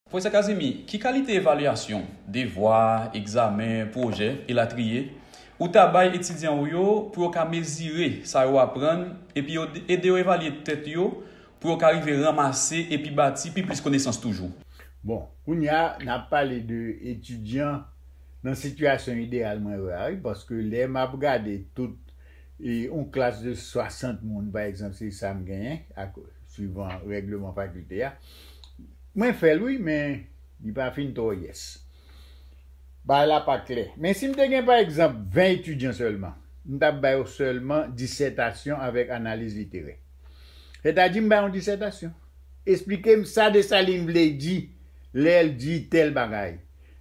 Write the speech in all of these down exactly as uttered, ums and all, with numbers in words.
Pwofesè Kazimi, ki kalite evalyasyon, devwa, egzamen, pwojè, elatriye, ou ta bay etidyan ou yo pou yo ka mezire sa yo aprann epi yo ede yo evalye tèt yo pou yo ka rive ranmase epi bati pi plis konesans toujou? Bon, kounye a, n ap pale de etidyan nan sitiyasyon ideyal mwen wè a, wi, paske lè m ap gade tout e yon klas de swasant moun, pa egzanp, se sa m genyen, ak, swivan règleman fakilte a. Mwen fè l, wi, men li pa fin twò yès. Bagay la pa klè. Men si m te gen, pa egzanp, ven etidyan sèlman, m t ap ba yo sèlman disètasyon avèk analiz literè. Sètadi, m ba yon disètasyon. Esplike m sa Desalin vle di lè l di tèl bagay.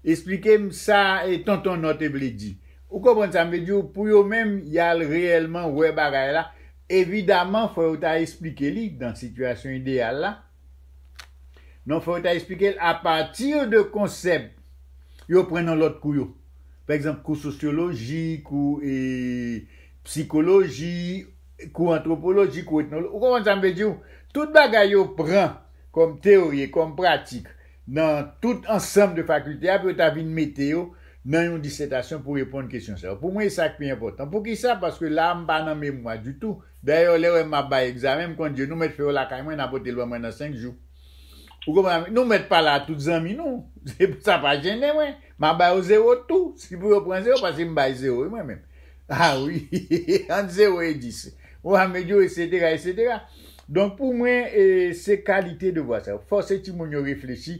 Esplike m sa e tonton Nò te vle di. Ou konprann sa m vle di w? Pou yo menm, y al reyèlman wè bagay la. Evidaman, fò yo ta esplike li nan sitiyasyon ideyal la. Non, fò yo ta esplike l apati de konsèp yo pran nan lòt kou yo. Pa egzanp, kou sosyoloji, kou e, sikoloji, kou antwopoloji, kou etnoloji. Ou konprann sa m vle di w? Tout bagay yo pran kòm teyori e kòm pratik nan tout ansanm de fakilte a pou yo ta vin mete yo nan yon disètasyon pou reponn kesyon sa yo. Pou mwen, e sa k pi enpòtan. Poukisa? Paske la a, m pa nan memwa ditou. Dayè, lè w wè m ap bay egzamen, m konn di yo, nou mèt fè yo lakay mwen, n a pote l ban mwen nan senk jou. Ou konprann? Nou mèt pa la tout zanmi nou. Sa pa jennen mwen. M a ba yo zewo tou. Si pou yo pran zewo, paske m bay zewo, wi, mwen menm. A wi, ant zewo e dis. Ou a medyo, etsetera, etsetera. Donk, pou mwen, e, se kalite devwa sa yo. Fòse timoun yo reflechi.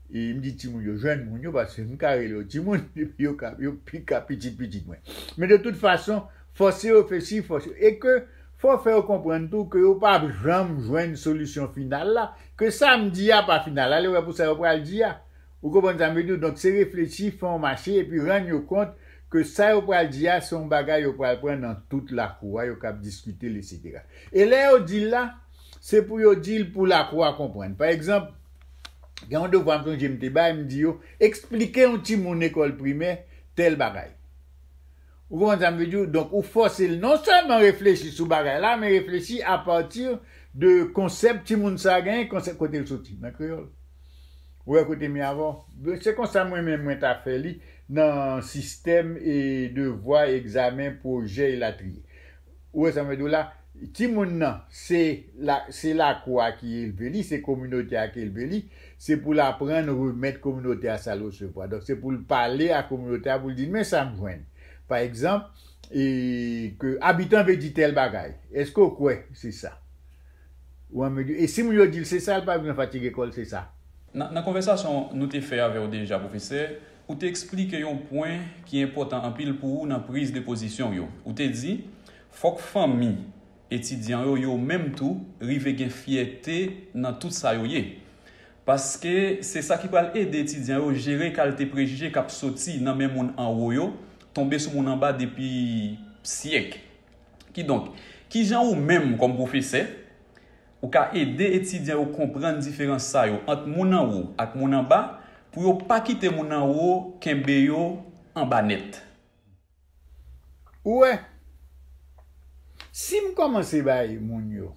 E m di timoun yo, jwenn moun yo, paske m ka rele yo timoun, yo ka, yo pi ka pitit pitit mwen. Men de tout fason, fòse yo reflechi, fòse yo. E ke fò fè yo konprann tou ke yo p ap janm jwenn solisyon final la, ke sa m di a pa final la, lè yo wè pou sa yo pral di a. Ou konprann sa m vle di w? Donk, se reflechi, fè yon mache, epi rann yo kont ke sa yo pral di a, se yon bagay yo pral pran nan tout lakou a, yo k ap diskite l, etsetera. E lè yo di l la, se pou yo di l pou lakou a konprann. Pa egzanp, gen yon devwa m sonje m te bay, m di yo, eksplike yon timoun lekòl primè tèl bagay. Ou konprann sa m vle di w? Donk, ou fòse l non sèlman reflechi sou bagay la, men reflechi apati de konsèp timoun sa a genyen, konsèp kote l soti, nan kreyòl. Ou wè kote m ye avè w? Se konsa mwen menm mwen ta fè li nan sistèm e devwa, egzamen, pwojè, elatriye. Ou wè sa m vle di w la? Timoun nan, se la, se lakou a ki elve li, se kominote a ki elve li, se pou l aprann remèt kominote a sa l resevwa. Donk, se pou l pale a kominote a, pou l di, men sa m jwenn. Pa egzanp, e, ke abitan vle di tèl bagay. Èske w kwè se sa? Ou an medyo. E si moun yo di l se sa, l pa bezwen fatige kò l, se sa. Nan, nan konvèsasyon nou te fè avè w deja, pwofesè, ou te eksplike yon pwen ki enpòtan anpil pou ou nan priz de pozisyon w yo. Ou te di, fòk fanmi etidyan yo, yo menm tou, rive gen fyète nan tout sa yo ye. Paske se sa ki pral ede etidyan yo jere kalite prejije k ap soti nan men moun anwo yo, tonbe sou moun anba depi syèk. Kidonk, kijan ou menm, kòm pwofesè, ou ka ede etidyan yo konprann diferans sa yo ant moun anwo ak moun anba, pou yo pa kite moun anwo kenbe yo anba nèt? Ou wè, si m kòmanse bay moun yo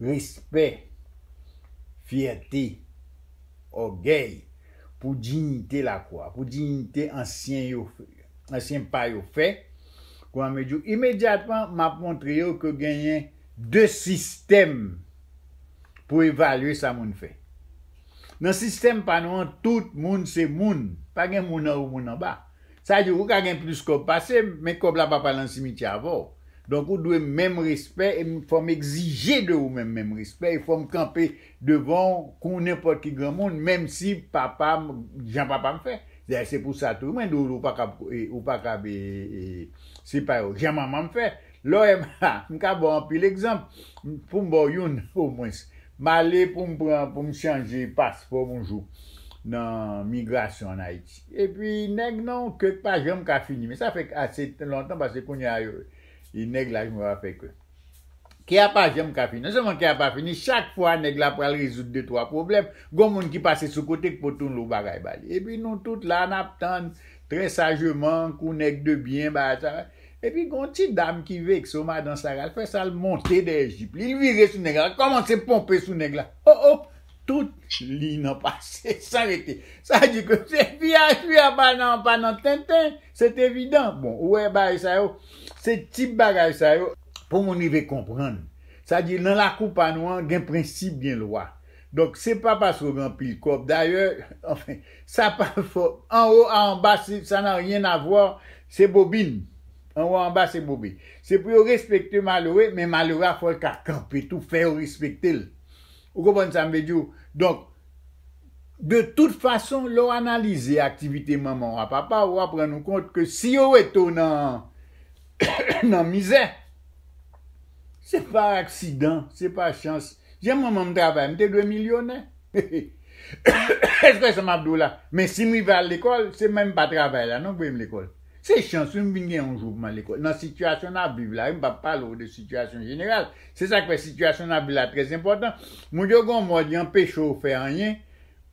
respè, fyète, ògèy, pou diyite lakou a, pou diyite ansyen yo, ansyen pa yo fè, kouman m di w, imedyatman, m ap montre yo ke genyen de sistèm pou evalye sa moun fè. Nan sistèm pa nou an, tout moun se moun. Pa gen moun anwo, moun anba. Sa di, ou ka gen plis kòb pase m, men kòb la pa pral nan simityè avè w. Donk, ou dwe menm respè, e m, fò m egzije de ou menm, menm respè, e fò m kanpe devan w kou nenpòt ki granmoun, menm si papa m, jan papa m fè. Dayè, se pou sa tou, mwen di w, ou pa kab, e, ou pa kab, e, e, se pa yo, jan manman m fè. Lè w wè m, m ka ba w anpil egzanp, pou m ba w youn, omwens. M ale pou m pran, pou m chanje paspò m yon jou nan migrasyon ann Ayiti. Epi nèg nan yon ke k pa janm ka fini. Men sa fè ase lontan, paske kounye a yo, e nèg la jwenn pa fè ke. Ke a pa janm ka fini. Non sèlman ke a pa fini, chak fwa nèg la pral rezoud de twa pwoblèm, gon moun ki pase sou kote k pote yon lo bagay ba li. Epi nou tout la, n ap tann, trè sajeman, kou nèg de byen, bagay sa. Epi gon ti dam ki vekse w, madan Sara, l fè sa, l monte dèyè jip li, l vire sou nèg la, l kòmanse ponpe sou nèg la. O, o! tout liy nan pase san rete. Sa di ke se piyaj, piyaj pa nan, pa nan tenten, se evidan. Bon, ou wè bagay sa yo, se tip bagay sa yo, pou moun rive konprann. Sa di, nan lakou pa nou an, gen prensip, gen lwa. Donk, se pa paske w gen anpil kòb. Dayè, anfen, sa pa fò. Anwo a anba, se, ça n'a rien à voir, se bobin. Anwo a anba, se bobin. Se pou yo respekte malere, men malere a fò l ka kanpe tou, fè yo respekte l. Ou konprann sa m vle di w? Donk, de tout fason, lè w analize aktivite manman w a papa w, w ap rann ou kont ke si yo rete w nan, nan mizè, se pa aksidan, se pa chans. Jan manman m travay, m te dwe milyonè. Èske sa m ap di w la? Men si m rive al lekòl, se menm pa travay la non k voye m lekòl. Se chans wi m vin gen yon jou pou m al lekòl. Nan sitiyasyon n ap viv la, wi, m p ap pale w de sitiyasyon jeneral. Se sa k fè sitiyasyon n ap viv la trè enpòtan. Moun yo gen yon mòd, y anpeche w fè anyen,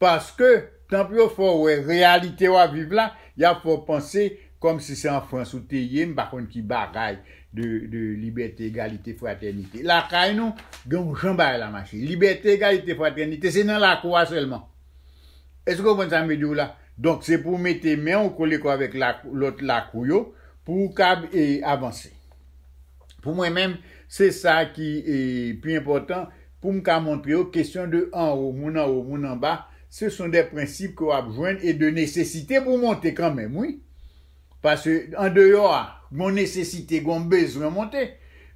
paske, tan pou yo fè w wè reyalite w ap viv la, y ap fè w panse kòmsi se an Frans ou te ye, m pa konn ki bagay de, de libète, egalite, fratènite. Lakay nou, gen yon jan bagay la mache. Libète, egalite, fratènite, se nan lakou a sèlman. Èske w konprann sa m vle di w la? Donk, se pou w mete men w kole kò avèk lak-, lòt lakou yo pou w kab, e, avanse. Pou mwen menm, se sa ki, e, pi enpòtan pou m ka montre yo kesyon de anwo, moun anwo, moun anba, ce sont des principes ke w ap jwenn e de nesesite pou w monte kanmenm, wi. Paske andeyò a, gon nesesite, gon bezwen monte.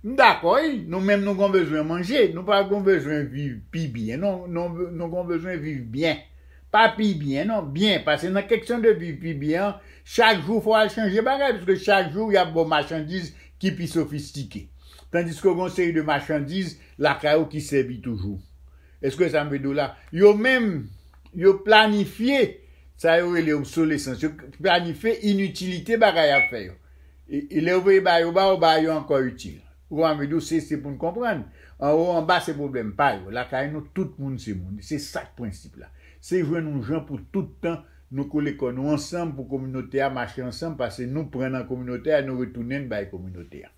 M dakò, wi, nou menm nou gon bezwen manje, nou pa gon bezwen viv pi byen, non, nou, nou gon bezwen viv byen. Pa pi byen, non, byen. Paske nan kesyon de viv pi byen an, chak jou fò w al chanje bagay, paske chak jou y ap ba w machandiz ki pi sofistike. Tandiske gon seri de machandiz lakay ou ki sèvi toujou. Èske sa m vle di w la? Yo menm, yo planifye sa yo rele obsolesans. Yo planifye initilite bagay y ap fè yo. E, e lè yo voye ba yo ba, yo ba yo ankò itil. Ou konprann m vle di w, se, se pou n konprann. Anwo, anba, se pwoblèm pa yo. Lakay nou, tout moun se moun. Se sa k prensip la. Se jwenn yon jan pou tout tan nou kole kò nou ansanm pou kominote a mache ansanm, paske nou pran nan kominote a, nou retounen n bay kominote a.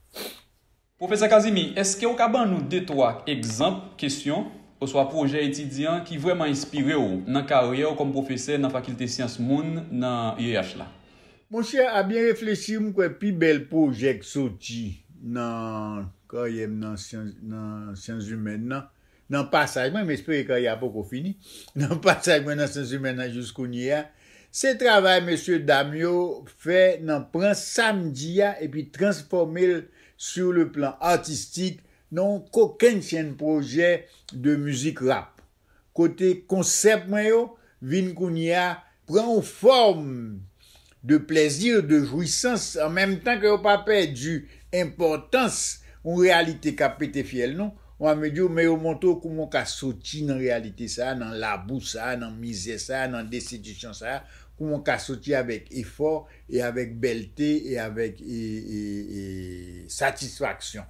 Pwofesè Casimir, èske w ka ban nou de twa egzanp kesyon oswa pwojè etidyan ki vrèman enspire w nan karyè w kòm pwofesè nan Fakilte Syans Moun nan U E H la? Monchè, a byen reflechi, m kwè pi bèl pwojè k soti nan karyè m nan syans, nan syans imèn nan, nan pasaj mwen, m espere karyè a poko fini, nan pasaj mwen nan syans imèn nan jis kounye a, se travay mesye dam yo fè nan pran sa m di a epi transfòme l sur le plan artistique nan yon kokennchenn pwojè de mizik rap. Kote konsèp mwen yo vin kounye a pran yon fòm de plèzi, de jwisans, an menm tan ke yo pa pèdi enpòtans yon reyalite k ap pete fyèl nou, w ap di w, men yo montre w kouman w ka soti nan reyalite sa a, nan labou sa a, nan mizè sa a, nan destitisyon sa a, kouman w ka soti avèk efò e avèk bèlte e avèk, e, e, e, satisfaksyon.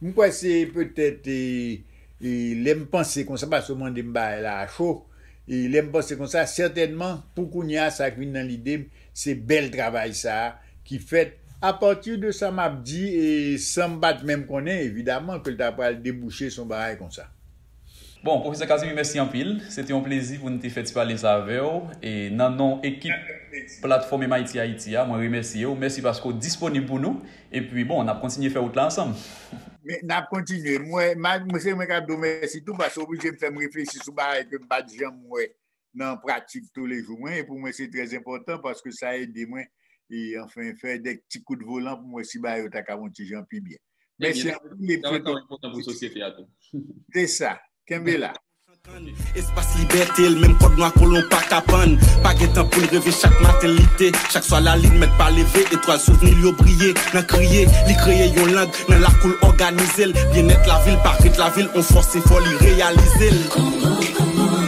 M kwè se petèt, e, e, lè m panse konsa, paske w mande m bagay la a cho, e lè m panse konsa, sètènman, pou kounye a, sa k vin nan lide m, se bèl travay sa a ki fèt. Apati de sa m ap di, e san m pa t menm konnen, evidaman, ke l ta pral debouche sou yon bagay konsa. Bon, Pwofesè Casimir, mèsi anpil. Se te yon plezi pou n te fè ti pale sa avè w. E nan non ekip platfòm M I T Haiti a, mwen remèsye w. Mèsi paske w disponib pou nou. Epi, bon, n ap kontinye fè wout la ansanm. Men, n ap kontinye. Mwen, ma-, mwen, se mwen k ap di w mèsi tou, paske w oblije m fè m reflechi sou bagay ke m pa t janm wè nan pratik toulejou mwen. E pou mwen, se trè enpòtan paske sa ede mwen, e, anfen, fè de ti kout volan pou m wè si bagay yo ta ka yon ti jan pi byen. Mèsi anpil. Sa va enpòtan pou sosyete a tou. Se sa. Kenbe la. Espas libète l, menm kòd nwa kolon pa ka pann. Pa gen tan pou l reve, chak maten l lite. Chak swa lalin mèt pa leve, etwal souvni l yo briye nan kriye. Li kreye yon lang nan lakou l òganize l. Byennèt lavil, parèt lavil, on fòs efò li reyalize l.